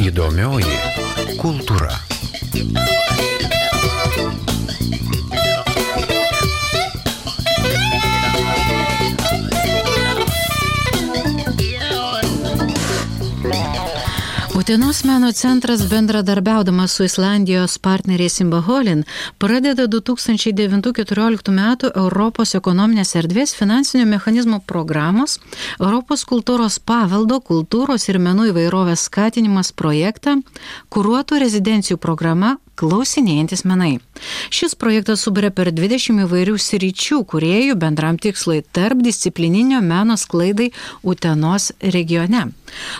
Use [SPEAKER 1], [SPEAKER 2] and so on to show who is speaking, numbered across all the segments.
[SPEAKER 1] Įdomioji kultūra.
[SPEAKER 2] Utenos meno centras bendradarbiaudamas su Islandijos partneriais Imbaholin pradeda 2009-2014 metų Europos ekonominės erdvės finansinių mechanizmų programos Europos kultūros paveldo, kultūros ir menų įvairovės skatinimas projektą, kuruotų rezidencijų programa Klausinėjantis menai. Šis projektas suburia per 20 įvairių sričių kūrėjų bendram tikslui tarp disciplininio meno sklaidai Utenos regione.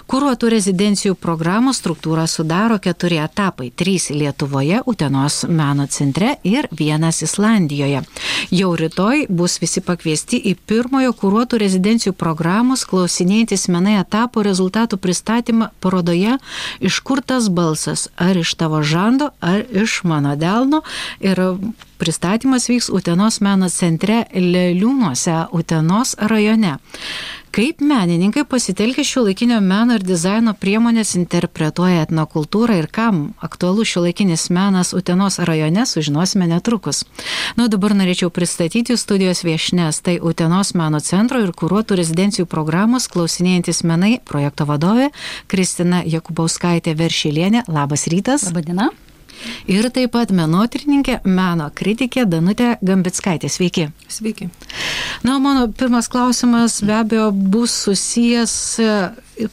[SPEAKER 2] Kuruotų rezidencijų programos struktūrą sudaro 4 etapai – 3 Lietuvoje, Utenos meno centre ir 1 Islandijoje. Jau rytoj bus visi pakviesti į pirmojo kuruotų rezidencijų programos Klausinėjantis menai etapo rezultatų pristatymą parodoje Iš kur tas balsas, ar iš tavo žando, ar iš mano delno, ir pristatymas vyks Utenos meno centre Leliūnuose, Utenos rajone. Kaip menininkai pasitelkę šiuolaikinio meno ir dizaino priemonės interpretuoja etnokultūrą ir kam aktualus šiuolaikinis menas Utenos rajone, sužinosime netrukus. Dabar norėčiau pristatyti studijos viešnes, tai Utenos meno centro ir kuruotų rezidencijų programos Klausinėjantis menai projekto vadovė Kristina Jakubauskaitė Veršilienė. Labas rytas.
[SPEAKER 3] Labadiena.
[SPEAKER 2] Ir taip pat menotyrininkė, meno kritikė Danutė Gambickaitė. Sveiki.
[SPEAKER 3] Sveiki.
[SPEAKER 2] Mano pirmas klausimas be abejo bus susijęs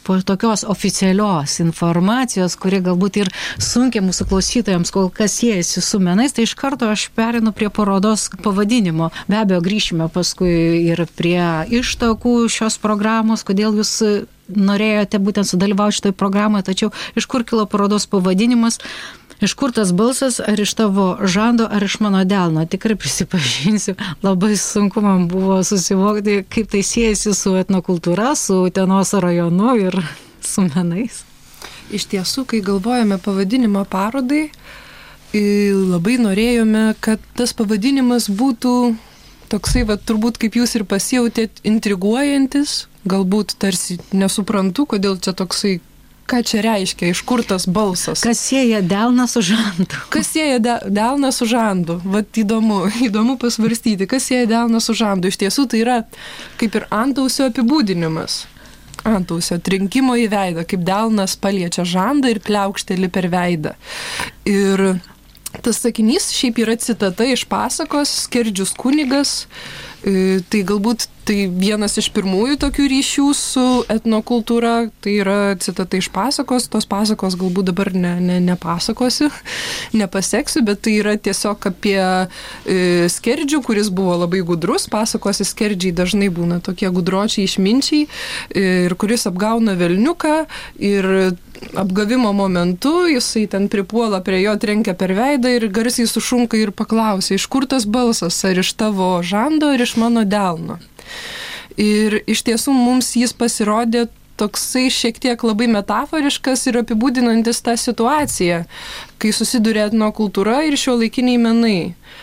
[SPEAKER 2] po tokios oficialios informacijos, kuri galbūt ir sunkiai mūsų klausytojams kol kas siejasi su menais, tai iš karto aš perinu prie parodos pavadinimo. Be abejo, grįšime paskui ir prie ištakų šios programos, kodėl jūs norėjote būtent sudalyvauti šitoj programoje, tačiau iš kur kilo parodos pavadinimas? Iš kur tas balsas, ar iš tavo žando, ar iš mano delno? Tikrai prisipažinsiu, labai sunku man buvo susivokti, kaip tai siejasi su etnokultūra, su Utenos rajonu ir su menais.
[SPEAKER 3] Iš tiesų, kai galvojame pavadinimą parodai, labai norėjome, kad tas pavadinimas būtų toksai, turbūt kaip jūs ir pasijautėt, intriguojantis, galbūt tarsi nesuprantu, kodėl čia toksai. Ką čia reiškia, iš kur tas balsas?
[SPEAKER 2] Kas sieja delną su žandu?
[SPEAKER 3] Kas sieja delną su žandu? Vat įdomu pasvarstyti, kas sieja delną su žandu. Iš tiesų tai yra kaip ir antausio apibūdinimas. Antausio trinkimo į veidą, kaip delnas paliečia žandą ir pliaukšteli per veidą. Ir tas sakinys šiaip yra citata iš pasakos Skerdžius kunigas. Tai galbūt tai vienas iš pirmųjų tokių ryšių su etnokultūra, tai yra citata iš pasakos, tos pasakos galbūt dabar nepasakosiu, nepaseksiu, bet tai yra tiesiog apie skerdžių, kuris buvo labai gudrus, pasakosi skerdžiai dažnai būna tokie gudročiai išminčiai, ir kuris apgauna velniuką ir apgavimo momentu jisai ten pripuola prie jo, trenkia per veidą ir garsiai sušunka ir paklausia, iš kur tas balsas, ar iš tavo žando, ar iš mano delno. Ir iš tiesų mums jis pasirodė toksai šiek tiek labai metaforiškas ir apibūdinantis tą situaciją, kai susiduria etnokultūra ir šiuolaikiniai menai.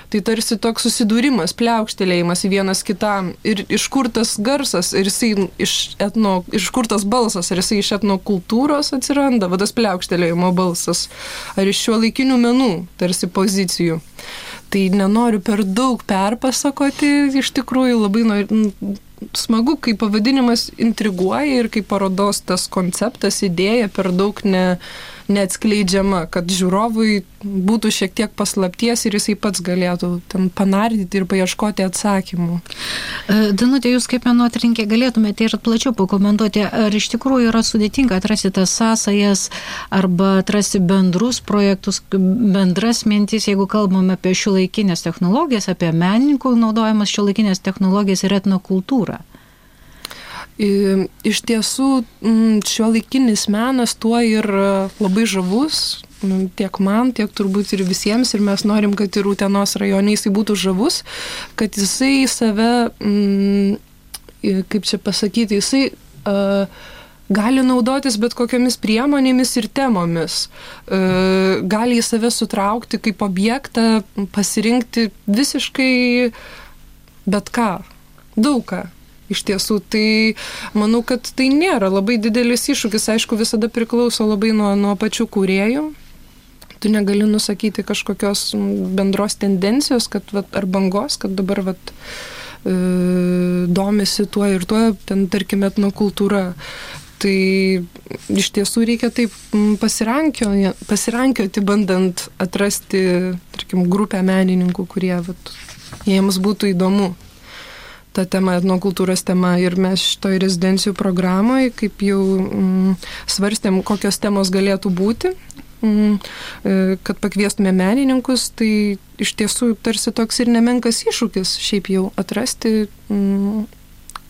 [SPEAKER 3] Tai tarsi toks susidūrimas, pliaukštelėjimas į vienas kitam ir iš kur tas garsas, ir jisai iš kur tas balsas, ar jisai iš etnokultūros atsiranda, tas pliaukštelėjimo balsas, ar iš šiuolaikinių menų, tarsi pozicijų. Tai nenoriu per daug perpasakoti, iš tikrųjų labai smagu, kai pavadinimas intriguoja ir kai parodos tas konceptas, idėja per daug neatskleidžiama, kad žiūrovui būtų šiek tiek paslapties ir jisai pats galėtų ten panardyti ir paieškoti atsakymų.
[SPEAKER 2] Danutė, jūs kaip menotyrininkė galėtumėte ir plačiau pakomentuoti, ar iš tikrųjų yra sudėtinga atrasti tas sąsajas arba atrasti bendrus projektus, bendras mintis, jeigu kalbame apie šiuolaikinės technologijas, apie menininkų naudojamas šiuolaikinės technologijas ir etnokultūrą.
[SPEAKER 3] Iš tiesų, šiuolaikinis menas tuo ir labai žavus, tiek man, tiek turbūt ir visiems, ir mes norim, kad ir Utenos rajone jisai būtų žavus, kad jisai save, kaip čia pasakyti, jisai gali naudotis bet kokiamis priemonėmis ir temomis, gali į save sutraukti kaip objektą, pasirinkti visiškai bet ką, daug ką. Iš tiesų, tai manau, kad tai nėra labai didelis iššūkis, aišku, visada priklauso labai nuo pačių kūrėjų. Tu negali nusakyti kažkokios bendros tendencijos, kad, ar bangos, kad dabar domisi tuo ir tuo, ten, tarkim, etnokultūra. Tai iš tiesų reikia taip pasirankioti, bandant atrasti, tarkim, grupę menininkų, kurie jiems būtų įdomu ta tema, etnokultūros tema. Ir mes šitoj rezidencijų programoje, kaip jau svarstėm, kokios temos galėtų būti, kad pakviestume menininkus, tai iš tiesų tarsi toks ir nemenkas iššūkis šiaip jau atrasti,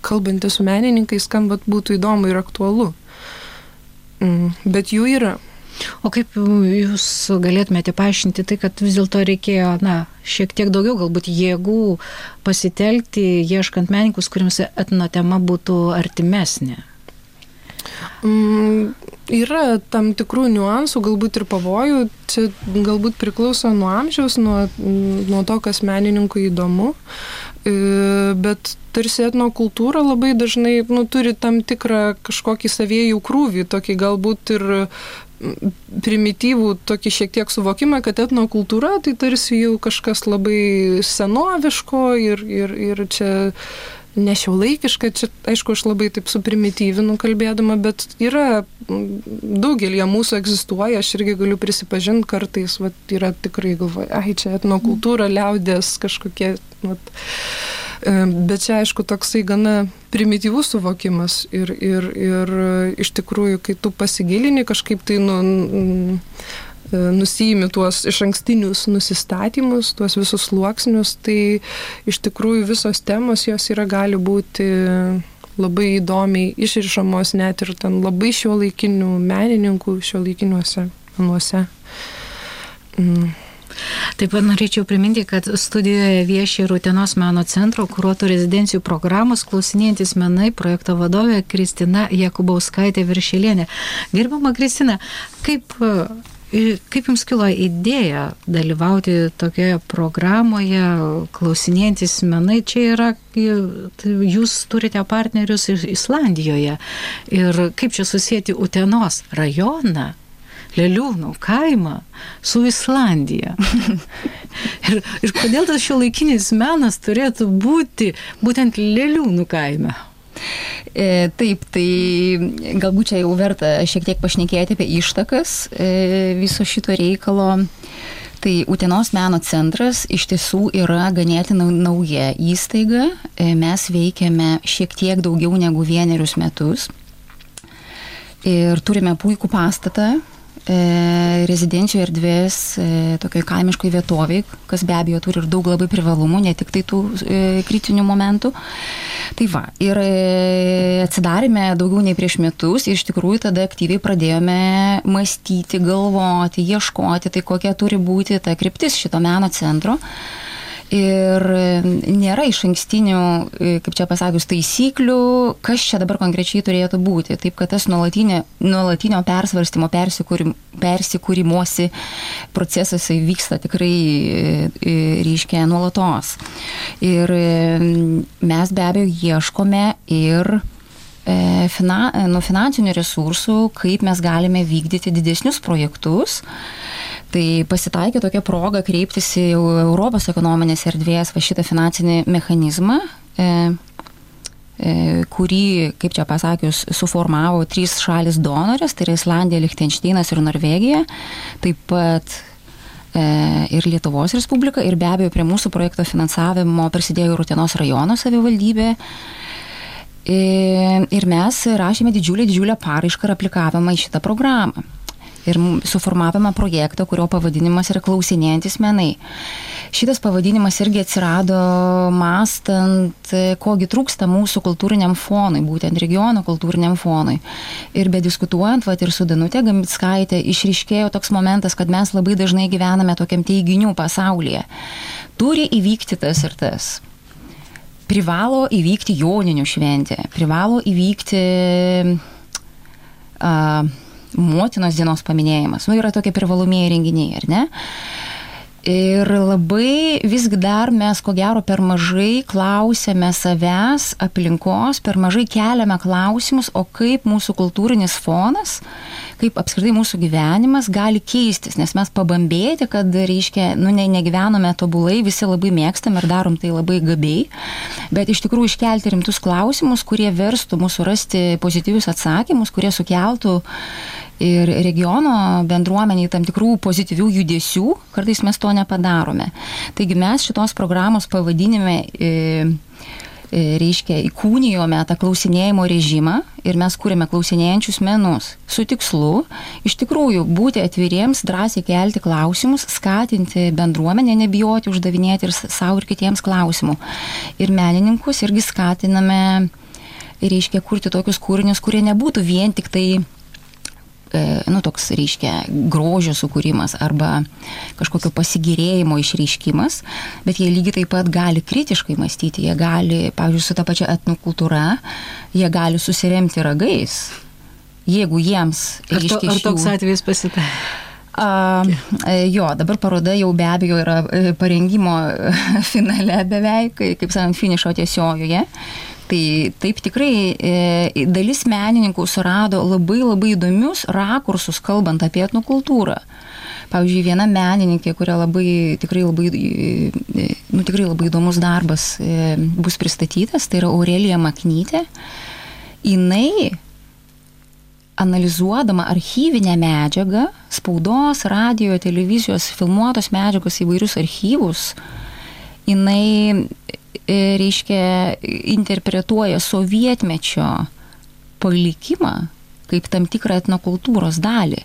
[SPEAKER 3] kalbantį su menininkais, kam būtų įdomu ir aktualu. Bet jų yra.
[SPEAKER 2] O kaip jūs galėtumėte paaiškinti tai, kad vis dėlto reikėjo, šiek tiek daugiau galbūt jėgų pasitelkti, ieškant menininkus, kuriems etnotema būtų artimesnė?
[SPEAKER 3] Yra tam tikrų niuansų, galbūt ir pavojų. Čia galbūt priklauso nuo amžiaus, nuo to, kas menininkui įdomu. Bet tarsi etnokultūra labai dažnai turi tam tikrą kažkokį savėjų krūvį, tokį galbūt ir primityvų tokį šiek tiek suvokimą, kad etnokultūra tai tarsi jau kažkas labai senoviško ir čia nešiuolaikiška. Čia, aišku, aš labai taip suprimityvinu kalbėdama, bet yra daugelį mūsų egzistuoja, aš irgi galiu prisipažinti kartais, yra tikrai galvoja, čia etnokultūra, liaudės kažkokie, bet čia, aišku, toksai gana primityvus suvokimas ir iš tikrųjų, kai tu pasigilini kažkaip tai nusiimi tuos išankstinius nusistatymus, tuos visus sluoksnius, tai iš tikrųjų visos temos jos gali būti labai įdomiai išrišamos net ir ten labai šiuolaikinių menininkų šiuolaikiniuose menuose.
[SPEAKER 2] Taip pat norėčiau priminti, kad studijoje vieši Utenos meno centro kuruotų rezidencijų programos Klausinėjantys menai projekto vadovė Kristina Jakubauskaitė Viršelienė. Gerbiama Kristina, kaip jums kilo idėja dalyvauti tokioje programoje Klausinėjantys menai? Čia yra, jūs turite partnerius Islandijoje ir kaip čia susijęti Utenos rajoną, Leliūnų kaimą su Islandija. ir kodėl tas šiuolaikinis menas turėtų būti būtent Leliūnų kaime?
[SPEAKER 1] Taip, tai galbūt čia jau verta šiek tiek pašnekėti apie ištakas viso šito reikalo. Tai Utenos meno centras iš tiesų yra ganėtinai nauja įstaiga. Mes veikiame šiek tiek daugiau negu 1 metus. Ir turime puikų pastatą, rezidencijų erdvės tokioj kaimiškoj vietoviai, kas be abejo turi ir daug labai privalumų, ne tik tai tų kritinių momentų. Tai va, ir atsidarėme daugiau nei prieš metus ir iš tikrųjų tada aktyviai pradėjome mąstyti, galvoti, ieškoti, tai kokia turi būti ta kryptis šito meno centro. Ir nėra išankstinių, kaip čia pasakius, taisyklių, kas čia dabar konkrečiai turėtų būti. Taip, kad tas nuolatinio persvarstymo, persikūrimosi procesas vyksta tikrai reiškia nuolatos. Ir mes be abejo ieškome ir finansinių resursų, kaip mes galime vykdyti didesnius projektus. Tai pasitaikė tokia proga kreiptis į Europos ekonominės erdvės šitą finansinį mechanizmą, kurį, kaip čia pasakius, suformavo 3 šalis donorės, tai yra Islandija, Lichtenšteinas ir Norvegija, taip pat ir Lietuvos Respublika, ir be abejo prie mūsų projekto finansavimo prisidėjo ir Utenos rajono savivaldybė. Ir mes rašėme didžiulę paraišką ir aplikavimą į šitą programą. Ir suformavome projektą, kurio pavadinimas yra Klausinėjantys menai. Šitas pavadinimas irgi atsirado mąstant, kogi trūksta mūsų kultūriniam fonui, būtent regiono kultūriniam fonui. Ir bediskutuojant, ir su Danute Gambickaitė išryškėjo toks momentas, kad mes labai dažnai gyvename tokiam teiginių pasaulyje. Turi įvykti tas ir tas. Privalo įvykti Joninių šventė, privalo įvykti Motinos dienos paminėjimas. Yra tokie privalomieji renginiai, ar ne? Ir labai visgi dar mes, ko gero, per mažai klausėme savęs, aplinkos, per mažai keliame klausimus, o kaip mūsų kultūrinis fonas, kaip apskritai mūsų gyvenimas gali keistis, nes mes pabambėti, kad, reiškia, negyvenome tobulai, visi labai mėgstam ir darom tai labai gabiai, bet iš tikrųjų iškelti rimtus klausimus, kurie verstų mūsų rasti pozityvius atsakymus, kurie sukeltų ir regiono bendruomeniai tam tikrų pozityvių judesių, kartais mes to nepadarome. Taigi mes šitos programos pavadinime reiškia įkūnijome tą klausinėjimo režimą ir mes kūrėme klausinėjančius menus su tikslu iš tikrųjų būti atviriems, drąsiai kelti klausimus, skatinti bendruomenę, nebijoti uždavinėti ir savo ir kitiems klausimų. Ir menininkus irgi skatiname, reiškia, kurti tokius kūrinius, kurie nebūtų vien tik tai toks, reiškia, grožio sukūrimas arba kažkokio pasigėrėjimo išreiškimas, bet jie lygiai taip pat gali kritiškai mąstyti, jie gali, pavyzdžiui, su ta pačia etnokultūra, jie gali susiremti ragais, jeigu jiems, reiškia,
[SPEAKER 2] ar toks atvejis pasitaikė?
[SPEAKER 1] Jo, dabar paroda jau be abejo yra parengimo finale beveik, kaip sakant, finišo tiesiojoje. Tai taip tikrai dalis menininkų surado labai labai įdomius rakursus, kalbant apie etnokultūrą. Pavyzdžiui, viena menininkė, kuria tikrai labai įdomus darbas bus pristatytas, tai yra Aurelija Maknytė. Jinai, analizuodama archyvinę medžiagą, spaudos, radijo, televizijos, filmuotos medžiagos įvairius archyvus, jinai reiškia, interpretuoja sovietmečio palikimą kaip tam tikrą etnokultūros dalį.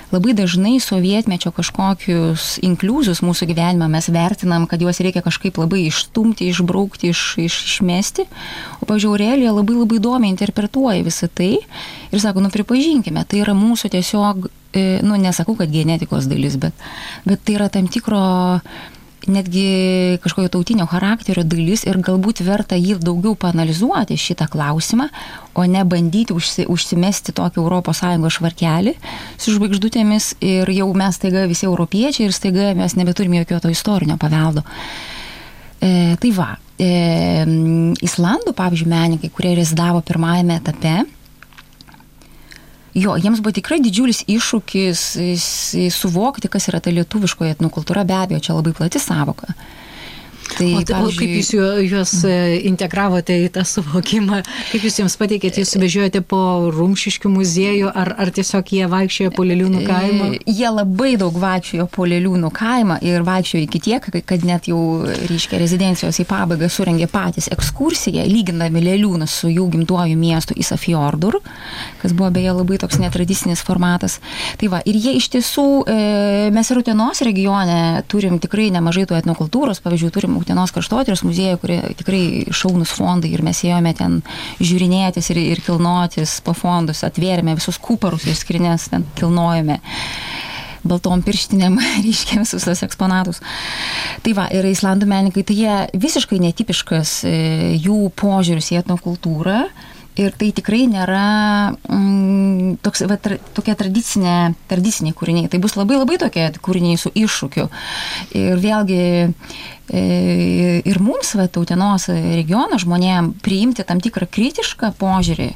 [SPEAKER 1] Labai dažnai sovietmečio kažkokius inkliuzus mūsų gyvenime mes vertinam, kad juos reikia kažkaip labai išstumti, išbraukti, išmesti. O, pavyzdžiui, Aurelija labai labai įdomiai interpretuoja visą tai ir sako, pripažinkime, tai yra mūsų tiesiog, nesakau, kad genetikos dalis, bet tai yra tam tikro netgi kažkokio tautinio charakterio dalis ir galbūt verta jį daugiau paanalizuoti šitą klausimą, o ne bandyti užsimesti tokį ES švarkelį su žvaigždutėmis ir jau mes staiga visi europiečiai ir staiga mes nebeturime jokio to istorinio paveldo. Tai va, Islandų, pavyzdžiui, menininkai, kurie rezidavo pirmajame etape, jo, jiems buvo tikrai didžiulis iššūkis suvokti, kas yra ta lietuviškoji etnokultūra, be abejo, čia labai plati savoka. Tai,
[SPEAKER 2] o kaip jūs juos integravote į tą suvokimą, kaip jūs jiems pateikėte, jūs vežiojate po Rumšiškių muziejų, ar tiesiog jie vaikščiojo po Leliūnų kaimą?
[SPEAKER 1] Jie labai daug vaikščiojo po Leliūnų kaimą ir vaikščiojo iki tiek, kad net jau, reiškia, rezidencijos į pabaigą surengė patys ekskursiją, lygindami Leliūną su jų gimtuoju miestu Ísafjordur, kas buvo beje labai toks netradicinis formatas. Tai va, ir jie iš tiesų, mes ir Utenos regione turim tikrai nemažai tų etnokultūros, pavyzdžiui, turim Utenos kraštotyros muziejų, kurie tikrai šaunus fondai ir mes ėjome ten žiūrinėtis ir kilnotis po fondus, atvėrėme visus kuparus ir skrinės, ten kilnojame baltom pirštinėm, reiškia visus tos eksponatus. Tai va, ir Islandų menininkai, tai jie visiškai netipiškas jų požiūris į etnokultūrą. Ir tai tikrai nėra tokie tradiciniai kūriniai. Tai bus labai labai tokie kūriniai su iššūkiu. Ir vėlgi ir mums, Utenos regiono žmonėm, priimti tam tikrą kritišką požiūrį.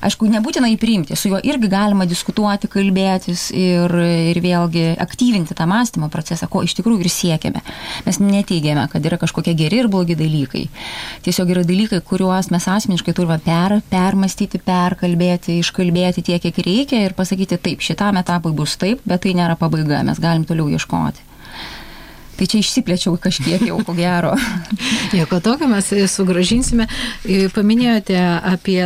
[SPEAKER 1] Aišku, nebūtinai priimti, su juo irgi galima diskutuoti, kalbėtis ir vėlgi aktyvinti tą mąstymo procesą, ko iš tikrųjų ir siekiame. Mes neteigiame, kad yra kažkokie geri ir blogi dalykai. Tiesiog yra dalykai, kuriuos mes asmeniškai turime permastyti, perkalbėti, iškalbėti tiek, kiek reikia ir pasakyti taip, šitam etapui bus taip, bet tai nėra pabaiga, mes galim toliau ieškoti. Tai čia išsiplėčiau kažkiek jau, ko gero.
[SPEAKER 2] Nieko tokio, mes sugrąžinsime. Paminėjote apie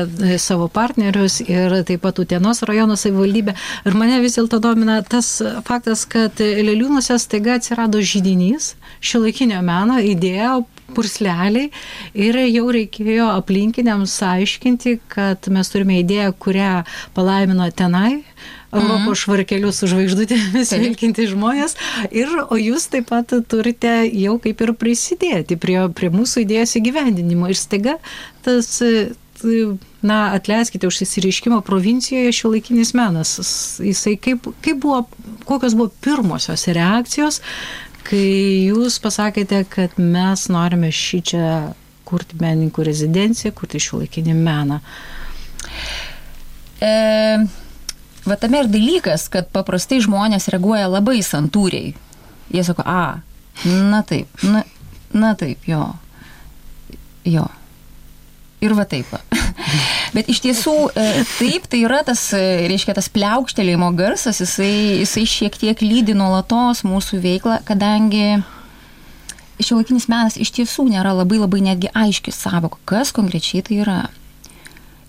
[SPEAKER 2] savo partnerius ir taip pat Utenos rajono savivaldybę. Ir mane vis dėlto domina tas faktas, kad Leliūnuose staiga atsirado židinys, šiuolaikinio meno idėja, pursleliai ir jau reikėjo aplinkiniams aiškinti, kad mes turime idėją, kurią palaimino tenai Europos švarkelius su žvaigždutėmis vilkinti žmonės, o jūs taip pat turite jau kaip ir prisidėti prie mūsų idėjos įgyvendinimo. Ir staiga tas, atleiskite už įsireiškimą, provincijoje šiuolaikinis menas, jisai kokios buvo pirmosios reakcijos, kai jūs pasakėte, kad mes norime šį čia kurti menininkų rezidenciją, kurti šiuolaikinį meną?
[SPEAKER 1] Va tame ir dalykas, kad paprastai žmonės reaguoja labai santūriai. Jie sako, na taip, na taip, jo. Ir va taip. Bet iš tiesų, taip, tai yra tas, reiškia, tas pliaukštelėjimo garsas, jisai šiek tiek lydi nuolatos mūsų veiklą, kadangi šiuolaikinis menas iš tiesų nėra labai netgi aiški sąvoka, kas konkrečiai tai yra.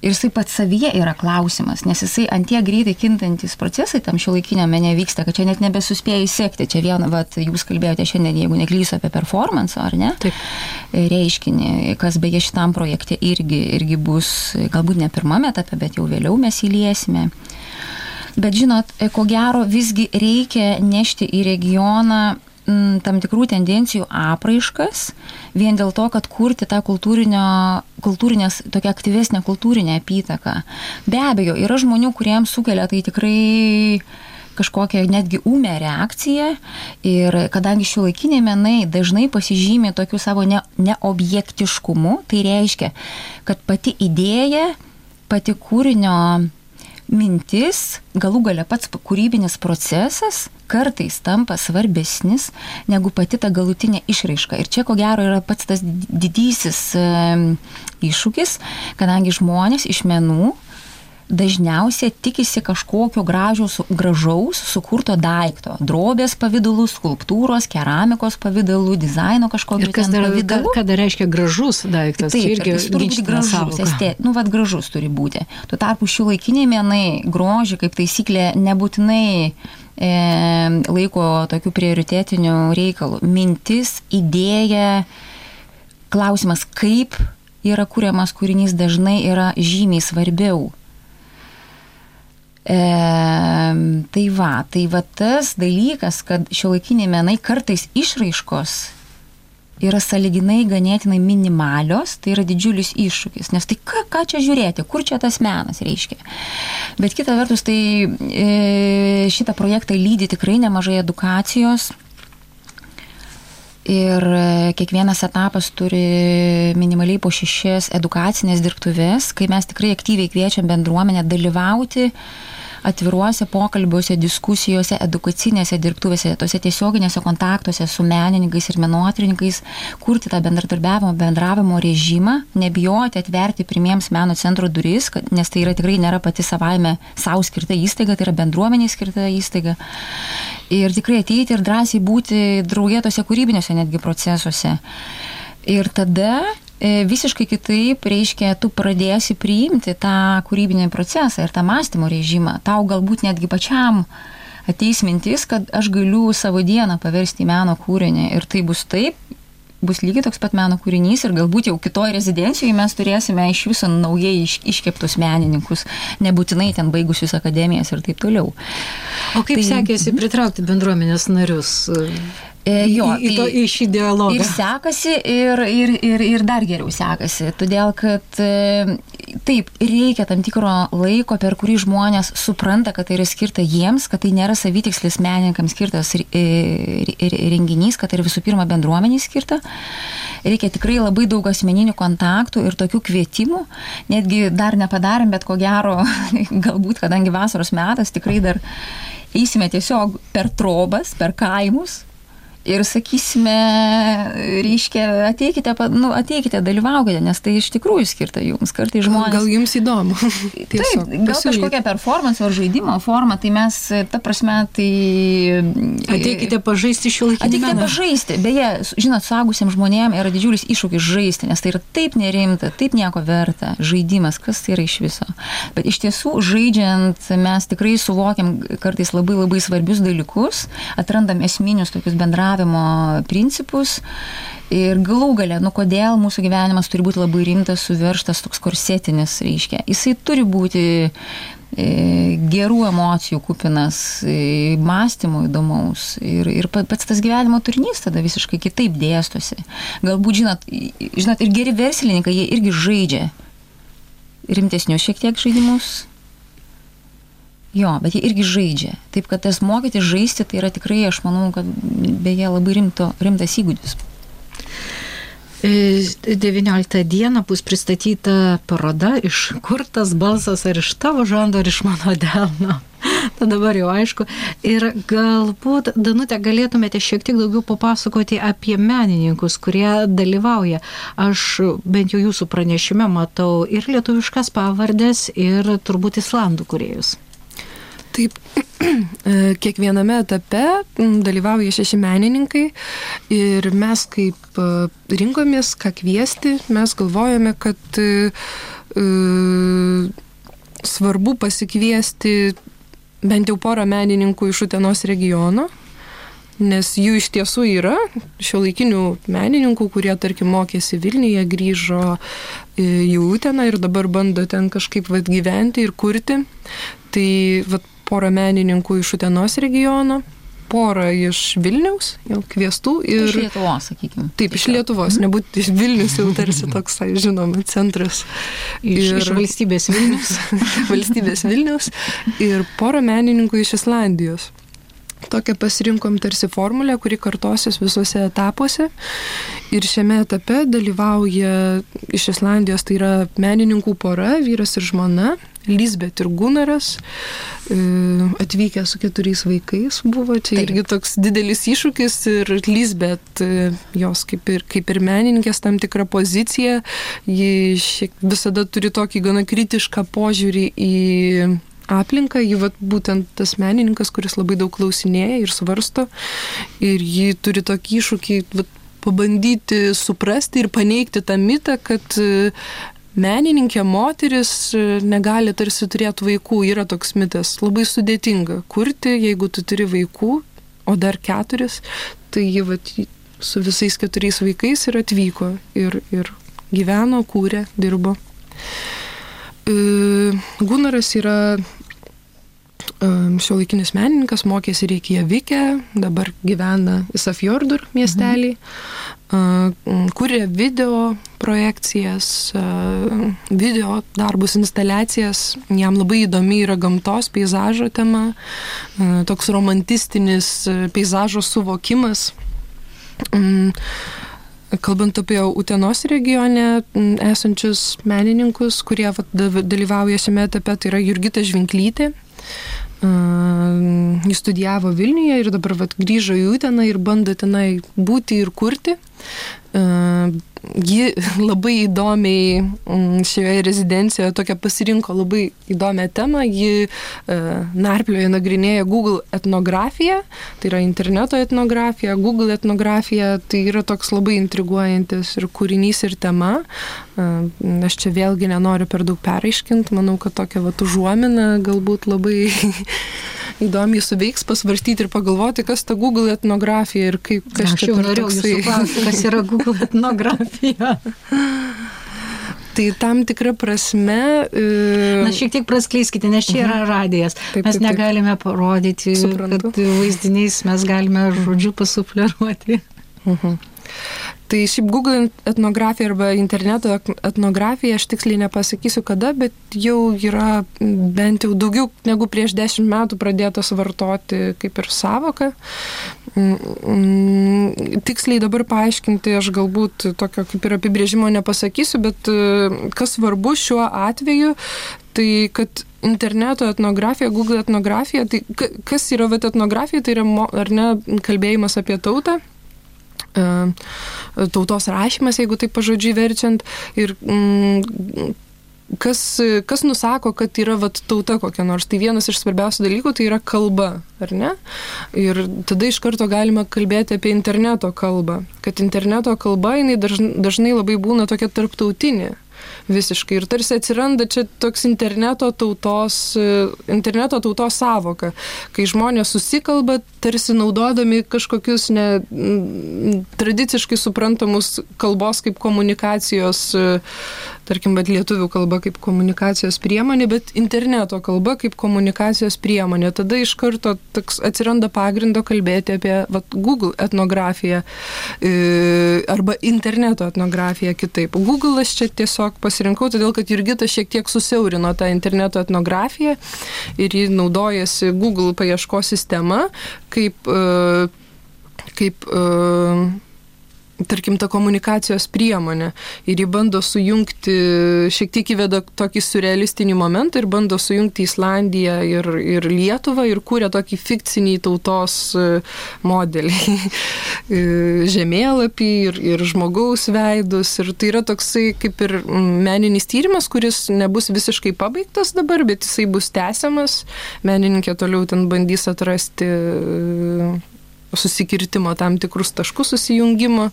[SPEAKER 1] Ir jisai pats savyje yra klausimas, nes jisai antie greitai kintantis procesai tam šiuolaikiniam mene vyksta, kad čia net nebesuspėjai sekti. Čia vien, jūs kalbėjote šiandien, jeigu neklysiu, apie performance, ar ne?
[SPEAKER 2] Taip.
[SPEAKER 1] Reiškinį, kas beje šitam projekte irgi bus, galbūt ne pirmame etape, bet jau vėliau mes įliesime. Bet žinot, ko gero visgi reikia nešti į regioną tam tikrų tendencijų apraiškas, vien dėl to, kad kurti tą kultūrinės, tokia aktyvesnė kultūrinė apytaka. Be abejo, yra žmonių, kuriems sukelia tai tikrai kažkokią netgi ūmę reakciją ir kadangi šiuolaikiniai menai dažnai pasižymi tokiu savo neobjektiškumu, tai reiškia, kad pati idėja, pati kūrinio mintis, galų gale pats kūrybinis procesas kartais tampa svarbesnis negu pati ta galutinė išraiška. Ir čia ko gero yra pats tas didysis iššūkis, kadangi žmonės iš menų dažniausiai tikisi kažkokio gražaus sukurto daikto. Drobės pavidalų, skulptūros, keramikos pavidalų, dizaino kažkokio pavidalų.
[SPEAKER 2] Ką dar reiškia gražus daiktas?
[SPEAKER 1] Taip, jis turi būti gražus, gražus turi būti. Tuo tarpu šiuolaikiniai menai grožį kaip taisyklė nebūtinai laiko tokių prioritetinių reikalų. Mintis, idėja, klausimas, kaip yra kuriamas kūrinys, dažnai yra žymiai svarbiau. Tai va tas dalykas, kad šiuolaikiniai menai kartais išraiškos yra sąlyginai ganėtinai minimalios, tai yra didžiulis iššūkis, nes tai ką čia žiūrėti, kur čia tas menas reiškia. Bet kita vertus, tai šitą projektą lydi tikrai nemažai edukacijos ir kiekvienas etapas turi minimaliai po 6 edukacinės dirbtuves, kai mes tikrai aktyviai kviečiam bendruomenę dalyvauti atviruose pokalbiuose, diskusijose, edukacinėse dirbtuvėse, tose tiesioginėse kontaktuose su menininkais ir menotyrininkais, kurti tą bendravimo režimą, nebijoti atverti pirmiems meno centro duris, nes tai yra tikrai nėra pati savaime savo skirta įstaiga, tai yra bendruomeniai skirta įstaiga. Ir tikrai ateiti ir drąsiai būti drauge tose kūrybiniuose netgi procesuose. Ir tada visiškai kitaip, reiškia, tu pradėsi priimti tą kūrybinį procesą ir tą mąstymo režimą. Tau galbūt netgi pačiam ateis mintis, kad aš galiu savo dieną paversti į meno kūrinį ir tai bus taip, bus lygiai toks pat meno kūrinys ir galbūt jau kitoj rezidencijoje mes turėsime iš viso naujai iškeptus menininkus, nebūtinai ten baigusius akademijas ir taip toliau.
[SPEAKER 2] O kaip sekėsi pritraukti bendruomenės narius? Į šį dialogą.
[SPEAKER 1] Ir sekasi, ir dar geriau sekasi, todėl kad taip, reikia tam tikro laiko, per kurį žmonės supranta, kad tai yra skirta jiems, kad tai nėra savitikslis menininkams skirtas renginys, kad tai yra visų pirma bendruomeniai skirta. Reikia tikrai labai daug asmeninių kontaktų ir tokių kvietimų, netgi dar nepadarėm, bet ko gero, galbūt, kadangi vasaros metas, tikrai dar eisime tiesiog per trobas, per kaimus. Ir sakysime, reiškia, ateikite, dalyvaukite, nes tai iš tikrųjų skirta jums. Kartai žmonės...
[SPEAKER 3] Gal jums įdomu.
[SPEAKER 1] Taip, gal kažkokia performance ar žaidimo forma, tai mes, ta prasme, tai...
[SPEAKER 2] Ateikite pažaisti šiuolaikinį meną.
[SPEAKER 1] Ateikite pažaisti. Beje, žinot, suaugusiems žmonėms yra didžiulis iššūkis žaisti, nes tai yra taip nerimta, taip nieko verta. Žaidimas, kas tai yra iš viso. Bet iš tiesų, žaidžiant, mes tikrai suvokiam kartais labai labai svarbius dalykus, atrandam esminius tokius principus ir galų gale, kodėl mūsų gyvenimas turi būti labai rimtas, suveržtas, toks korsetinis, reiškia. Jisai turi būti gerų emocijų kupinas, mąstymo įdomaus ir pats tas gyvenimo turinys tada visiškai kitaip dėstosi. Galbūt, žinot, ir geri verslininkai, jie irgi žaidžia rimtesnius šiek tiek žaidimus. Jo, bet jie irgi žaidžia. Taip, kad tas mokyti žaisti, tai yra tikrai, aš manau, kad beje labai rimtas įgūdis.
[SPEAKER 2] 19 dieną bus pristatyta paroda Iš kur tas balsas, ar iš tavo žando, ar iš mano delno. Tai dabar jau aišku. Ir galbūt, Danute, galėtumėte šiek tiek daugiau papasakoti apie menininkus, kurie dalyvauja. Aš bent jau jūsų pranešime matau ir lietuviškas pavardės, ir turbūt islandų kūrėjus.
[SPEAKER 3] Taip, kiekviename etape dalyvauja 6 menininkai ir mes kaip rinkomės, ką kviesti, mes galvojame, kad svarbu pasikviesti bent jau porą menininkų iš Utenos regiono, nes jų iš tiesų yra šiuolaikinių menininkų, kurie, tarkim, mokėsi Vilniuje, grįžo į Uteną ir dabar bando ten kažkaip gyventi ir kurti. Tai porą menininkų iš Utenos regiono, porą iš Vilniaus, jau kviestų. Ir
[SPEAKER 1] iš Lietuvos, sakykime.
[SPEAKER 3] Taip, iš Lietuvos, nebūtų iš Vilnius, jau tarsi toks, žinoma, centras.
[SPEAKER 2] Iš valstybės Vilnius.
[SPEAKER 3] Valstybės Vilnius ir porą menininkų iš Islandijos. Tokią pasirinkom tarsi formulę, kuri kartosis visuose etapuose. Ir šiame etape dalyvauja iš Islandijos, tai yra menininkų pora, vyras ir žmona, Lisbeth ir Gunaras, atvykę su 4 vaikais buvo. Čia irgi toks didelis iššūkis ir Lisbeth, jos kaip ir menininkės tam tikrą poziciją, ji visada turi tokį gana kritišką požiūrį į aplinką, ji būtent tas menininkas, kuris labai daug klausinėja ir svarsto, ir ji turi tokį iššūkį pabandyti suprasti ir paneigti tą mitą, kad menininkė moteris negali tarsi turėti vaikų, yra toks mitas, labai sudėtinga kurti, jeigu tu turi vaikų, o dar 4, tai ji su visais 4 vaikais ir atvyko ir gyveno, kūrė, dirbo. Gunaras yra šiuolaikinis menininkas, mokėsi Reikjavike, dabar gyvena Ísafjörður miestelį, kūrė video projekcijas, video darbus, instaliacijas, jam labai įdomi yra gamtos, peizažo tema, toks romantistinis peizažo suvokimas. Kalbant apie Utenos regione esančius menininkus, kurie dalyvauja šiame etape, tai yra Jurgita Žvinklytė. Jis studijavo Vilniuje ir dabar grįžo į Uteną ir bando tenai būti ir kurti. Ji labai įdomiai šioje rezidencijoje tokią pasirinko labai įdomią temą. Ji narplioje nagrinėja Google etnografiją, tai yra interneto etnografija, Google etnografija, tai yra toks labai intriguojantis ir kūrinys ir tema. Aš čia vėlgi nenoriu per daug peraiškinti, manau, kad tokia užuomina galbūt labai įdomiai suveiks, pasvarstyti ir pagalvoti, kas ta Google etnografija ir kaip kas
[SPEAKER 2] čia per toksai. Kas yra Google etnografija?
[SPEAKER 3] Tai tam tikra prasme...
[SPEAKER 2] Na, šiek tiek praskleiskite, nes čia yra radijas. Mes negalime parodyti, kad vaizdiniais mes galime žodžiu pasufleruoti.
[SPEAKER 3] Tai šiaip Google etnografija arba interneto etnografija, aš tiksliai nepasakysiu kada, bet jau yra bent jau daugiau negu prieš 10 metų pradėtas vartoti kaip ir sąvoka. Tiksliai dabar paaiškinti aš galbūt tokio kaip ir apibrėžimo nepasakysiu, bet kas svarbu šiuo atveju, tai kad interneto etnografija, Google etnografija, tai kas yra etnografija, tai yra ar ne kalbėjimas apie tautą, tautos rašymas, jeigu taip pažodžiui verčiant, ir kas nusako, kad yra tauta kokia nors. Tai vienas iš svarbiausių dalykų tai yra kalba, ar ne? Ir tada iš karto galima kalbėti apie interneto kalbą. Kad interneto kalba, jinai dažnai labai būna tokia tarptautinė. Visiškai. Ir tarsi atsiranda čia toks interneto tautos sąvoka, kai žmonės susikalba, tarsi naudodami kažkokius tradiciškai suprantamus kalbos kaip komunikacijos tarkim, bet lietuvių kalba kaip komunikacijos priemonė, bet interneto kalba kaip komunikacijos priemonė. Tada iš karto atsiranda pagrindo kalbėti apie Google etnografiją arba interneto etnografiją kitaip. Google aš čia tiesiog pasirinkau, todėl kad Jurgita šiek tiek susiaurino tą interneto etnografiją ir ji naudojasi Google paieškos sistema kaip tarkim, ta komunikacijos priemonė. Ir jį bando sujungti, šiek tiek įveda tokį surrealistinį momentą ir bando sujungti Islandiją ir Lietuvą ir kūrė tokį fikcinį tautos modelį. Žemėlapį ir žmogaus veidus. Ir tai yra toksai kaip ir meninis tyrimas, kuris nebus visiškai pabaigtas dabar, bet jisai bus tęsiamas. Menininkė toliau ten bandys atrasti susikirtimo tam tikrus taškus susijungimo.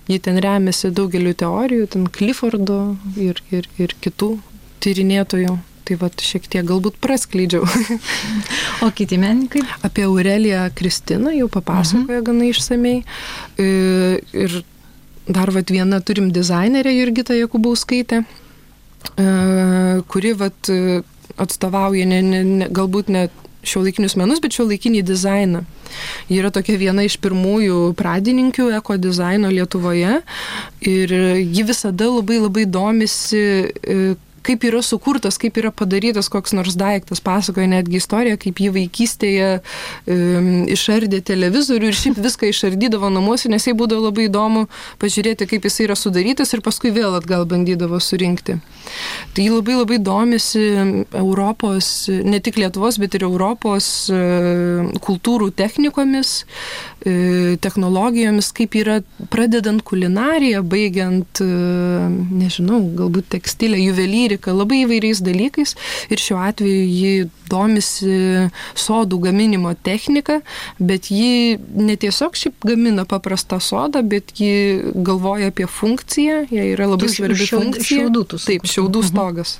[SPEAKER 3] Ji ten remiasi daugeliu teorijų, ten Cliffordo ir kitų tyrinėtojų. Tai šiek tiek galbūt praskleidžiau.
[SPEAKER 2] O kiti menininkai?
[SPEAKER 3] Apie Aureliją Kristiną jau papasakoja gana išsamei. Ir dar viena turim dizainerę Jurgitą Jakubauskaitę, kuri atstovauja galbūt ne šiuolaikinius menus, bet šiuolaikinį dizainą. Ji yra tokia viena iš pirmųjų pradininkių eko dizaino Lietuvoje ir ji visada labai labai domisi, kaip yra sukurtas, kaip yra padarytas koks nors daiktas. Pasakoja netgi istoriją, kaip ji vaikystėje išardė televizorių ir šiaip viską išardydavo namuose, nes jai būdavo labai įdomu pažiūrėti, kaip jis yra sudarytas ir paskui vėl atgal bandydavo surinkti. Tai ji labai labai domisi Europos, ne tik Lietuvos, bet ir Europos kultūrų technikomis, technologijomis, kaip yra pradedant kulinariją, baigiant, nežinau, galbūt tekstilę, juvelyrika, labai įvairiais dalykais ir šiuo atveju ji domisi sodų gaminimo technika, bet ji netiesiog šiaip gamina paprastą sodą, bet ji galvoja apie funkciją, jai yra labai svarbi funkcija. Taip, šiaudų stogas.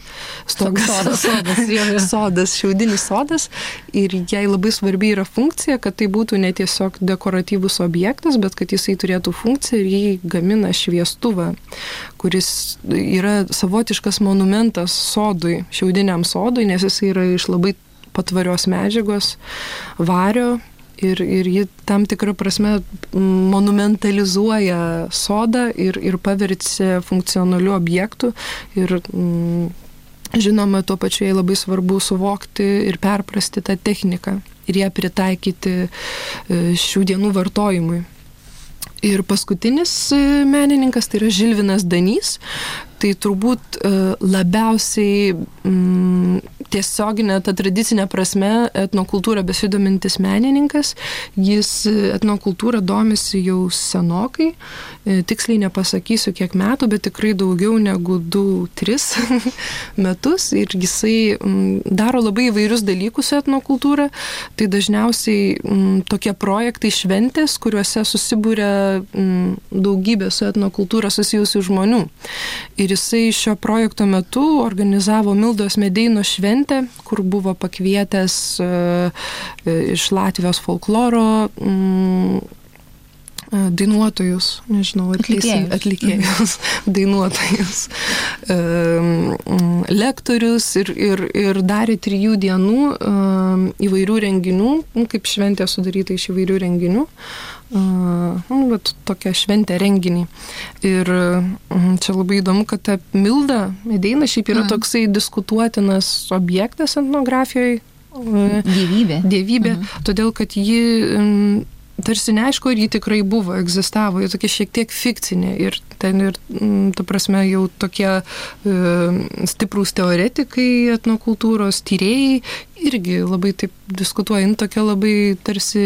[SPEAKER 3] Sodas, šiaudinis sodas ir jai labai svarbi yra funkcija, kad tai būtų ne tiesiog dekoratyvus objektas, bet kad jisai turėtų funkciją ir jį gamina šviestuvą, kuris yra savotiškas monumentas sodui, šiaudiniam sodui, nes jisai yra iš labai patvarios medžiagos, vario ir ji tam tikrą prasme monumentalizuoja sodą ir paverčia funkcionaliu objektu ir žinoma, tuo pačiu jai labai svarbu suvokti ir perprasti tą techniką ir ją pritaikyti šių dienų vartojimui. Ir paskutinis menininkas, tai yra Žilvinas Danys, tai turbūt labiausiai tiesioginė, ta tradicinė prasme etnokultūra besidomintis menininkas. Jis etnokultūrą domisi jau senokai, tiksliai nepasakysiu kiek metų, bet tikrai daugiau negu 2-3 metus ir jisai daro labai įvairius dalykus su etnokultūra. Tai dažniausiai tokie projektai šventės, kuriuose susibūrė daugybė su etnokultūra susijusių žmonių. Ir jisai šio projekto metu organizavo Mildos Medeino šventę, kur buvo pakvietęs iš Latvijos folkloro dainuotojus, nežinau, atlikėjus, dainuotojus, lektorius ir darė 3 dienų įvairių renginių, kaip šventė sudaryta iš įvairių renginių. Tokia šventė renginį. Ir čia labai įdomu, kad ta Milda Medeina šiaip yra toksai diskutuotinas objektas etnografijoje. Dievybė. Todėl, kad ji tarsi neaišku, ar ji tikrai buvo, egzistavo, ji tokia šiek tiek fikcinė ir ten ir, ta prasme, jau tokie stiprūs teoretikai etnokultūros tyrėjai irgi labai taip diskutuoja, tokia labai tarsi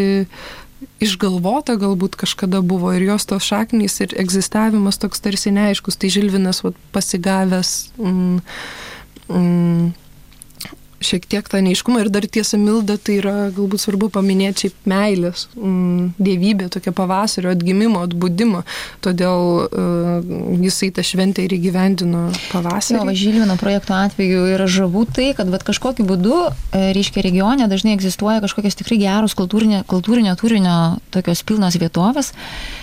[SPEAKER 3] išgalvota galbūt kažkada buvo ir jos tos šaknys ir egzistavimas toks tarsi neaiškus, tai Žilvinas pasigavęs šiek tiek tą neiškumą ir dar tiesa Milda, tai yra galbūt svarbu paminėti šiaip meilės, dievybė, tokia pavasario atgimimo, atbudimo, todėl jisai tą šventę ir įgyvendino pavasarį.
[SPEAKER 1] Jo, Žilvino projekto atveju yra žavu tai, kad kažkokiu būdu, reiškia, regione dažnai egzistuoja kažkokios tikrai geros kultūrinio turinio tokios pilnos vietovės,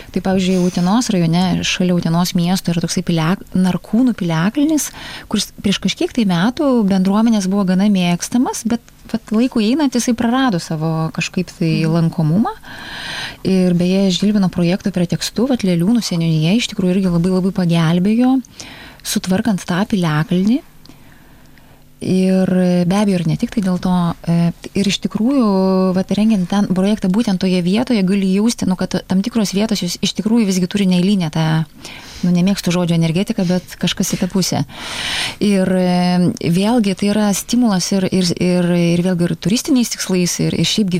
[SPEAKER 1] Tai pavyzdžiui, Utenos rajone, šalia Utenos miesto yra toksai Narkūnų piliakalnis, kuris prieš kažkiek tai metų bendruomenės buvo gana mėgstamas, bet laiku einant jisai prarado savo kažkaip tai lankomumą. Ir beje, Žilvino projekto pretekstu, Leliūnų seniūnija iš tikrųjų irgi labai labai pagelbėjo, sutvarkant tą piliakalnį. Ir be abejo, ir ne tik tai dėl to, ir iš tikrųjų, rengiant ten projektą būtent toje vietoje, gali jausti, kad tam tikros vietos jūs iš tikrųjų visgi turi neeilinę tą, nemėgstu žodžio energetiką, bet kažkas į tą pusę. Ir vėlgi tai yra stimulas ir vėlgi ir turistiniais tikslais, ir šiaip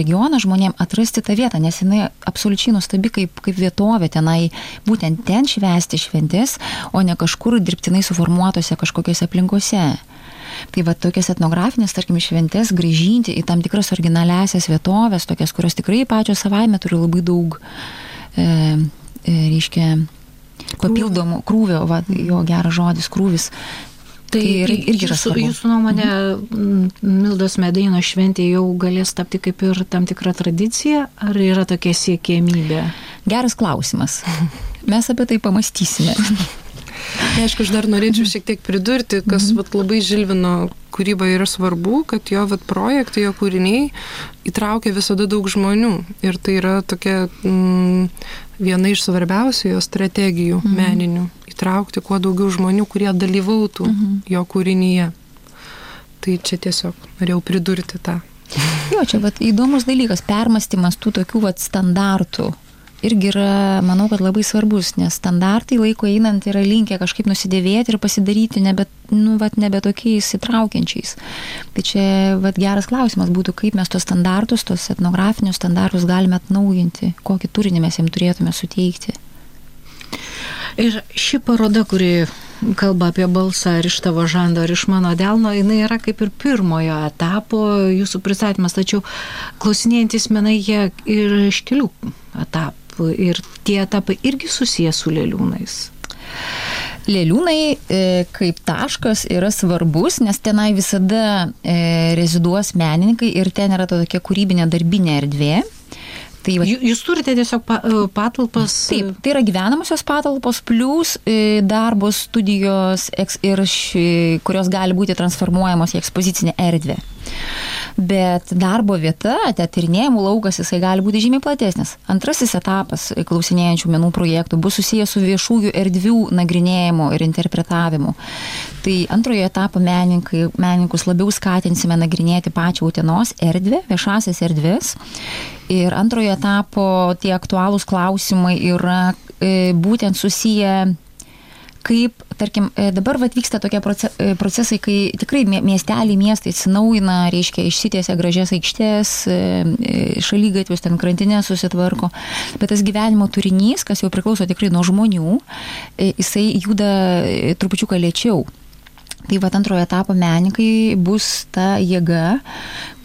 [SPEAKER 1] regiono žmonėm atrasti tą vietą, nes jinai absoliučiai nuostabi kaip vietovė tenai, būtent ten švęsti šventės, o ne kažkur dirbtinai suformuotose kažkokiose aplinkose. Tai tokias etnografinės, tarkim, šventės grįžinti į tam tikras originaliasias vietovės, tokias, kurios tikrai pačios savaime turi labai daug, reiškia, papildomų krūvio, jo geras žodis, krūvis.
[SPEAKER 2] Tai irgi yra svarbu. Jūsų nuomonė, Mildos Medeino šventė jau galės tapti kaip ir tam tikra tradicija, ar yra tokia siekiamybė?
[SPEAKER 1] Geras klausimas. Mes apie tai pamastysime.
[SPEAKER 3] Aišku, aš dar norėčiau šiek tiek pridurti, kas labai Žilvino kūryba yra svarbu, kad jo projektai, jo kūriniai įtraukia visada daug žmonių. Ir tai yra tokia viena iš svarbiausių jo strategijų meninių. Įtraukti kuo daugiau žmonių, kurie dalyvautų jo kūrinyje. Tai čia tiesiog norėjau pridurti tą.
[SPEAKER 1] Jo, čia įdomus dalykas, permąstymas tų tokių standartų. Irgi yra, manau, kad labai svarbus, nes standartai laiko einant yra linkę kažkaip nusidėvėti ir pasidaryti nebe tokiais įtraukiančiais. Tai čia geras klausimas būtų, kaip mes tos standartus, tos etnografinius standartus galime atnaujinti, kokį turinį mes jiems turėtume suteikti.
[SPEAKER 2] Ir ši paroda, kuri kalba apie balsą ar iš tavo žando, ar iš mano delno, jinai yra kaip ir pirmojo etapo jūsų pristatymas, tačiau klausinėjantis menai jie ir iš kelių etapų. Ir tie etapai irgi susiję su Leliūnais.
[SPEAKER 1] Leliūnai kaip taškas yra svarbus, nes tenai visada reziduos menininkai ir ten yra tokia kūrybinė darbinė erdvė. Tai
[SPEAKER 2] jūs turite tiesiog patalpas?
[SPEAKER 1] Taip, tai yra gyvenamosios patalpos plus darbo studijos, kurios gali būti transformuojamos į ekspozicinę erdvę. Bet darbo vieta, tyrinėjimų laukas, jisai gali būti žymiai platesnis. Antrasis etapas klausinėjančių menų projektų bus susijęs su viešųjų erdvių nagrinėjimu ir interpretavimu. Tai antrojo etapo menininkus labiau skatinsime nagrinėti pačią Utenos erdvę, viešasias erdvės. Ir antrojo etapo tie aktualūs klausimai yra būtent susiję, kaip, tarkim, dabar vyksta tokie procesai, kai tikrai miestai atsinaujina, reiškia, išsitiesia gražias aikštės, šalygatvius, ten krantinės susitvarko, bet tas gyvenimo turinys, kas jau priklauso tikrai nuo žmonių, jisai juda trupučiuką lėčiau. Tai antrojo etapo menininkai bus ta jėga,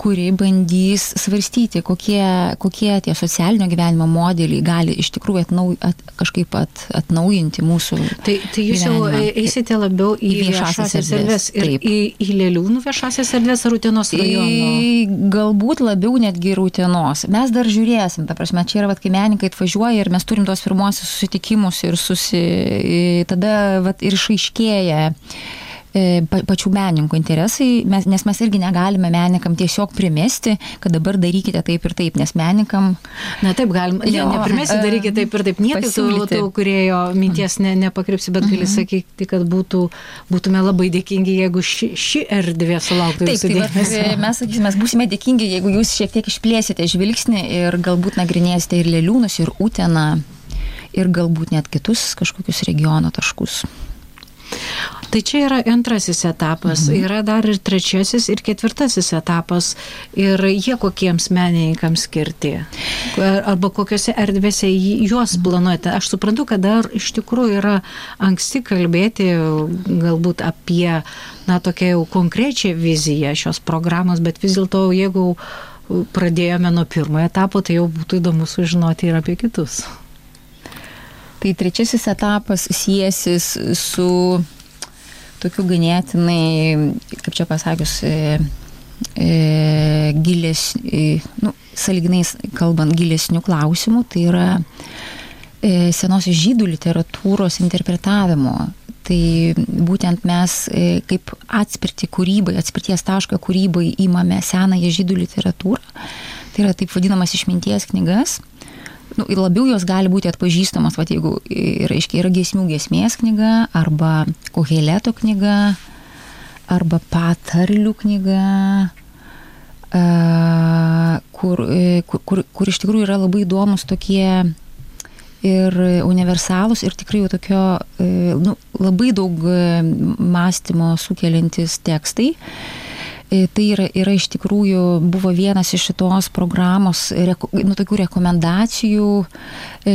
[SPEAKER 1] kuri bandys svarstyti, kokie tie socialinio gyvenimo modeliai gali iš tikrųjų kažkaip atnaujinti mūsų
[SPEAKER 2] Tai jūs jau eisite labiau į viešasias erdvės ir į Leliūnų viešasias erdvės ar Utenos rajono?
[SPEAKER 1] Galbūt labiau netgi ir Utenos. Mes dar žiūrėsim, ta prasme, čia yra, kai menininkai atvažiuoja ir mes turim tos pirmosius susitikimus ir tada ir išaiškėja pačių menininkų interesai, nes mes irgi negalime menininkam tiesiog primesti, kad dabar darykite taip ir taip, nes menininkam...
[SPEAKER 2] Na taip, galim, neprimesti, darykite taip ir taip, niekaip tų kūrėjo minties nepakrypsi, bet gali sakyti, kad būtume labai dėkingi, jeigu ši erdvė sulauktų jūsų dėmesio.
[SPEAKER 1] Mes sakysime, mes būsime dėkingi, jeigu jūs šiek tiek išplėsite žvilgsnį ir galbūt nagrinėsite ir Leliūnus, ir Uteną, ir galbūt net kitus kažkokius regiono taškus.
[SPEAKER 2] Tai čia yra antrasis etapas, yra dar ir trečiasis ir ketvirtasis etapas ir jie kokiems menininkams skirti arba kokiose erdvėse juos planuojate. Aš suprantu, kad dar iš tikrųjų yra anksti kalbėti galbūt apie tokią jau konkrečią viziją šios programos, bet vis dėlto jeigu pradėjome nuo pirmojo etapo, tai jau būtų įdomu sužinoti ir apie kitus.
[SPEAKER 1] Tai trečiasis etapas siesis su tokiu ganėtinai, kaip čia pasakius, sąlyginai kalbant, gilesnių klausimų. Tai yra senosios žydų literatūros interpretavimo. Tai būtent mes kaip atspirties tašką kūrybai įmame senąją žydų literatūrą. Tai yra taip vadinamas išminties knygas. Ir labiau jos gali būti atpažįstamas, jeigu yra giesmių giesmės knyga, arba Koheleto knyga, arba patarlių knyga, kur iš tikrųjų yra labai įdomus tokie ir universalūs ir tikrai jau tokio labai daug mąstymo sukeliantis tekstai. Tai yra iš tikrųjų buvo vienas iš šitos programos tokių rekomendacijų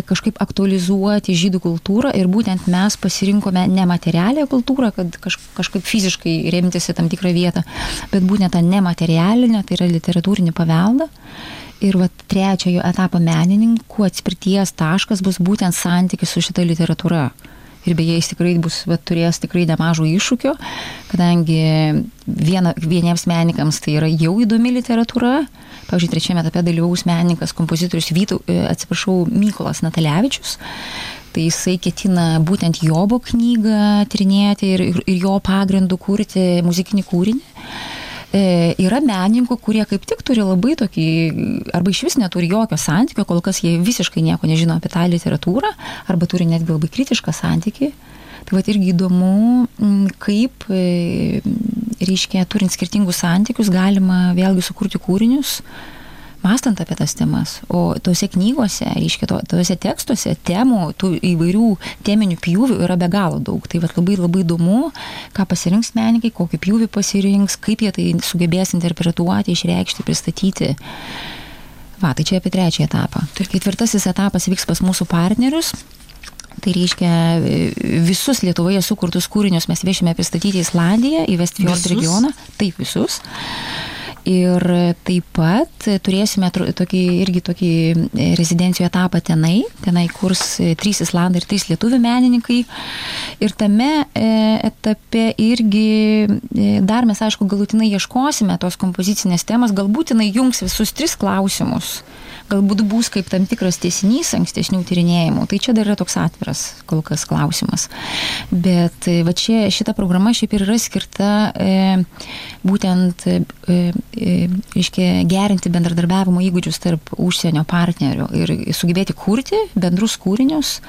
[SPEAKER 1] kažkaip aktualizuoti žydų kultūrą ir būtent mes pasirinkome nematerialią kultūrą, kad kažkaip fiziškai remtis į tam tikrą vietą, bet būtent tą nematerialinę, tai yra literatūrinį paveldą. Ir trečiojo etapo menininkų atspirties taškas bus būtent santykis su šita literatūra. Ir beje, jis tikrai turės tikrai nemažų iššūkių, kadangi vieniems menininkams tai yra jau įdomi literatūra. Pavyzdžiui, trečiame etape dalyvaus menininkas, kompozitorius Mykolas Natalevičius. Tai jisai ketina būtent Jobo knygą tyrinėti ir jo pagrindų kurti muzikinį kūrinį. Yra menininkų, kurie kaip tik turi labai tokį, arba iš vis neturi jokio santykio, kol kas jie visiškai nieko nežino apie tą literatūrą, arba turi netgi labai kritišką santykį. Tai irgi įdomu, kaip, reiškia, turint skirtingus santykius, galima vėlgi sukurti kūrinius, mąstant apie tas temas. O tose knygose, reiškia, tose tekstuose temų, tų įvairių teminių pjūvių yra be galo daug. Tai labai labai įdomu, ką pasirinks menininkai, kokį pjūvį pasirinks, kaip jie tai sugebės interpretuoti, išreikšti, pristatyti. Tai čia apie trečią etapą. Ketvirtasis etapas vyks pas mūsų partnerius. Tai reiškia, visus Lietuvoje sukurtus kūrinius mes viešime pristatyti į Islandiją, į Vestfjord regioną. Taip, visus. Ir taip pat turėsime tokį rezidencijų etapą tenai kurs 3 islandai ir 3 lietuvių menininkai. Ir tame etape irgi dar mes, aišku, galutinai ieškosime tos kompozicinės temas, galbūt jinai jungs visus 3 klausimus. Galbūt bus kaip tam tikras tęsinys ankstesnių tyrinėjimų. Tai čia dar yra toks atviras kol kas klausimas. Bet šita programa šiaip ir yra skirta būtent gerinti bendradarbiavimo įgūdžius tarp užsienio partnerių ir sugebėti kurti bendrus kūrinius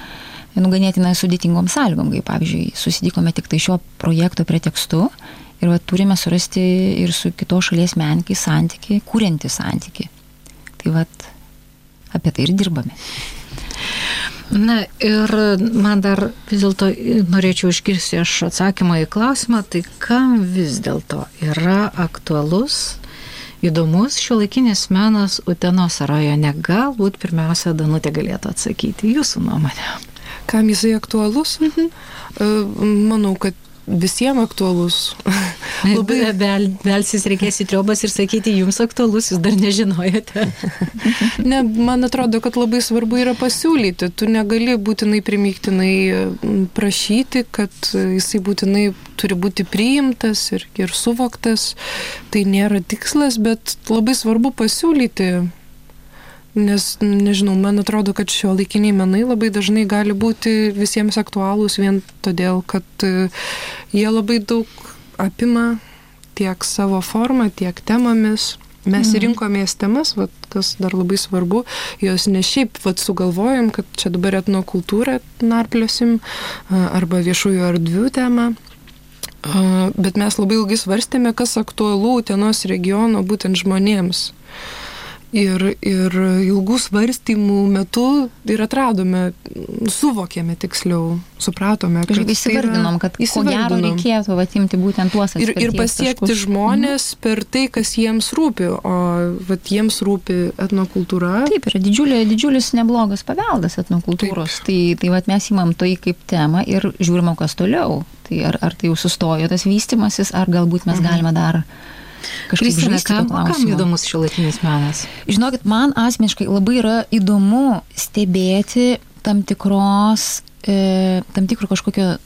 [SPEAKER 1] ganėtinai sudėtingom sąlygom, kaip pavyzdžiui, susitikome tik tai šio projekto pretekstu ir turime surasti ir su kitos šalies menininkais santykį, kuriantį santykį. Tai apie tai ir dirbame.
[SPEAKER 2] Na ir man dar vis dėlto norėčiau išgirsti aš atsakymą į klausimą, tai kam vis dėlto yra aktualus, įdomus šiuolaikinis menas Utenos rajone? Galbūt pirmiausia Danutė galėtų atsakyti jūsų nuomonę.
[SPEAKER 3] Kam jisai aktualus? Manau, kad visiems aktualus.
[SPEAKER 2] Labai belsis reikės į triobas ir sakyti, jums aktualus, jūs dar nežinojate.
[SPEAKER 3] Ne, man atrodo, kad labai svarbu yra pasiūlyti. Tu negali būtinai primygtinai prašyti, kad jisai būtinai turi būti priimtas ir suvoktas. Tai nėra tikslas, bet labai svarbu pasiūlyti. Nes, nežinau, man atrodo, kad šiuolaikiniai menai labai dažnai gali būti visiems aktualūs vien todėl, kad jie labai daug apima tiek savo formą, tiek temomis. Mes rinkomės temas, kas dar labai svarbu, jos ne šiaip sugalvojom, kad čia dabar etnokultūrą narpliosim arba viešųjų erdvių temą. Bet mes labai ilgai svarstėme, kas aktualu Utenos regiono būtent žmonėms. Ir ilgų svarstymų metu ir atradome, suvokėme tiksliau, supratome, kad
[SPEAKER 1] įsivardinom, kad ko gero reikėtų atimti būtent tuos atspirties taškus.
[SPEAKER 3] Ir pasiekti žmonės per tai, kas jiems rūpi, o jiems rūpi etnokultūra.
[SPEAKER 1] Taip, yra didžiulis neblogas paveldas etnokultūros. Taip. Tai mes imam tai kaip temą ir žiūrime, kas toliau. Tai ar tai jau sustojo tas vystymasis, ar galbūt mes galime dar
[SPEAKER 2] Kristina, kam įdomus šiuolaikinis menas?
[SPEAKER 1] Žinokit, man asmeniškai labai yra įdomu stebėti tam tikro kažkokio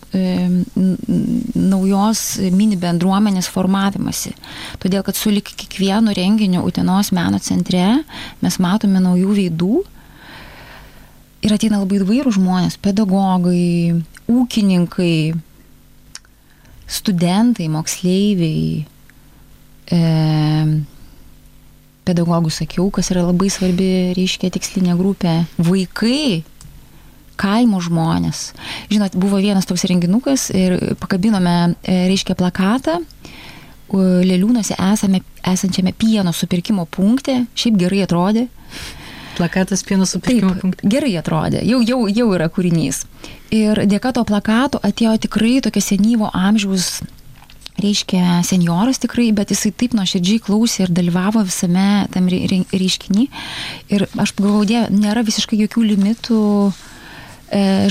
[SPEAKER 1] naujos mini bendruomenės formavimasi. Todėl, kad sulig kiekvienu renginiu Utenos meno centre mes matome naujų veidų Ir ateina labai įvairūs žmonės, pedagogai, ūkininkai, studentai, moksleiviai, pedagogų sakiau, kas yra labai svarbi, reiškia, tikslinė grupė, vaikai, kaimo žmonės. Žinot, buvo vienas toks renginukas ir pakabinome, reiškia, plakatą Leliūnuose esančiame pieno supirkimo punkte, šiaip gerai atrodė.
[SPEAKER 2] Plakatas pieno supirkimo punkte.
[SPEAKER 1] Gerai atrodė, jau yra kūrinys. Ir dėka to plakato atėjo tikrai tokia senyvo amžiaus, reiškia, senjoras tikrai, bet jisai taip nuoširdžiai klausė ir dalyvavo visame tam reiškinį. Ir aš pagalvojau, nėra visiškai jokių limitų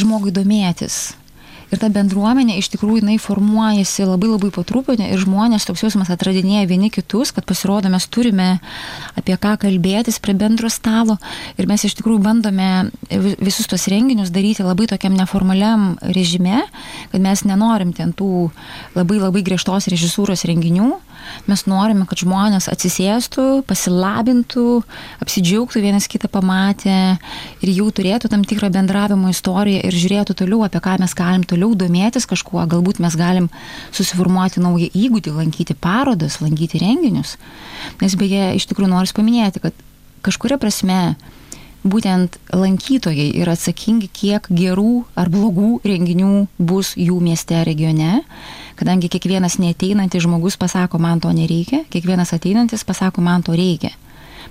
[SPEAKER 1] žmogui domėtis. Ir ta bendruomenė iš tikrųjų jinai formuojasi labai po truputį ir žmonės toks jausmas atradinėja vieni kitus, kad pasirodo mes turime apie ką kalbėtis prie bendro stalo ir mes iš tikrųjų bandome visus tos renginius daryti labai tokiam neformaliam režime, kad mes nenorim ten tų labai griežtos režisūros renginių. Mes norime, kad žmonės atsisėstų, pasilabintų, apsidžiaugtų vienas kitą pamatę ir jau turėtų tam tikrą bendravimo istoriją ir žiūrėtų toliau, apie ką mes galim toliau domėtis kažkuo. Galbūt mes galim susiformuoti naują įgūdį, lankyti parodas, lankyti renginius. Nes beje, iš tikrųjų noriu paminėti, kad kažkuria prasme būtent lankytojai yra atsakingi, kiek gerų ar blogų renginių bus jų mieste, regione, kadangi kiekvienas neateinantis žmogus pasako, man to nereikia, kiekvienas ateinantis pasako, man to reikia.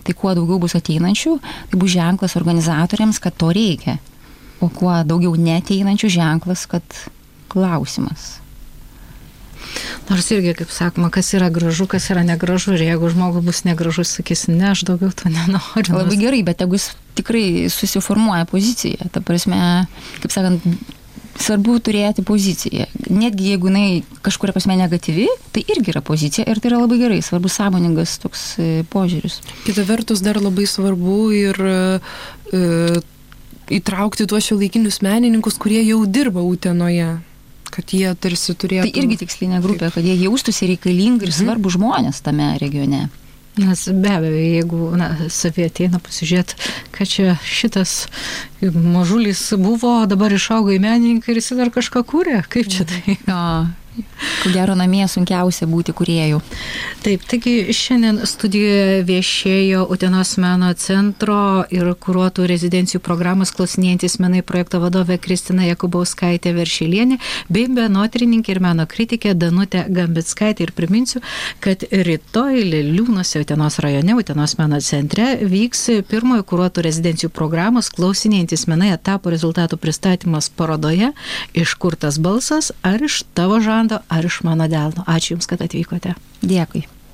[SPEAKER 1] Tai kuo daugiau bus ateinančių, tai bus ženklas organizatoriams, kad to reikia. O kuo daugiau neateinančių ženklas, kad klausimas.
[SPEAKER 2] Nors irgi, kaip sakoma, kas yra gražu, kas yra negražu. Ir jeigu žmogus bus negražus, sakys, ne, aš daugiau to nenoriu.
[SPEAKER 1] Labai gerai, bet jeigu jis tikrai susiformuoja poziciją, ta prasme, kaip sakant, svarbu turėti poziciją. Netgi jeigu jinai kažkuria prasme negatyvi, tai irgi yra pozicija ir tai yra labai gerai, svarbu sąmoningas toks požiūris.
[SPEAKER 3] Kita vertus dar labai svarbu ir įtraukti tuos šiuolaikinius menininkus, kurie jau dirba Utenoje. Kad jie tarsi turėtų...
[SPEAKER 1] Tai irgi tikslinė grupė, kad jie jaustųsi reikalingi ir svarbų žmonės tame regione.
[SPEAKER 2] Nes be abejo, jeigu savie ateina pasižiūrėti, kad čia šitas mažulis buvo, dabar išaugo į menininką ir jis dar kažką kūrė, kaip čia tai?
[SPEAKER 1] Ko gero namie sunkiausia būti kūrėjų.
[SPEAKER 2] Taip, taigi šiandien studijoje viešėjo Utenos meno centro ir kuruotų rezidencijų programos Klausinėjantys menai projekto vadovė Kristina Jakubauskaitė Veršelienė bei menotyrininkė ir meno kritikė Danutė Gambickaitė. Ir priminsiu, kad rytoj Leliūnuose Utenos rajone, Utenos meno centre vyks pirmojo kuruotų rezidencijų programos Klausinėjantys menai etapo rezultatų pristatymas parodoje Iš kur tas balsas, ar iš tavo žando, ar iš mano delno. Ačiū Jums, kad atvykote.
[SPEAKER 1] Dėkui.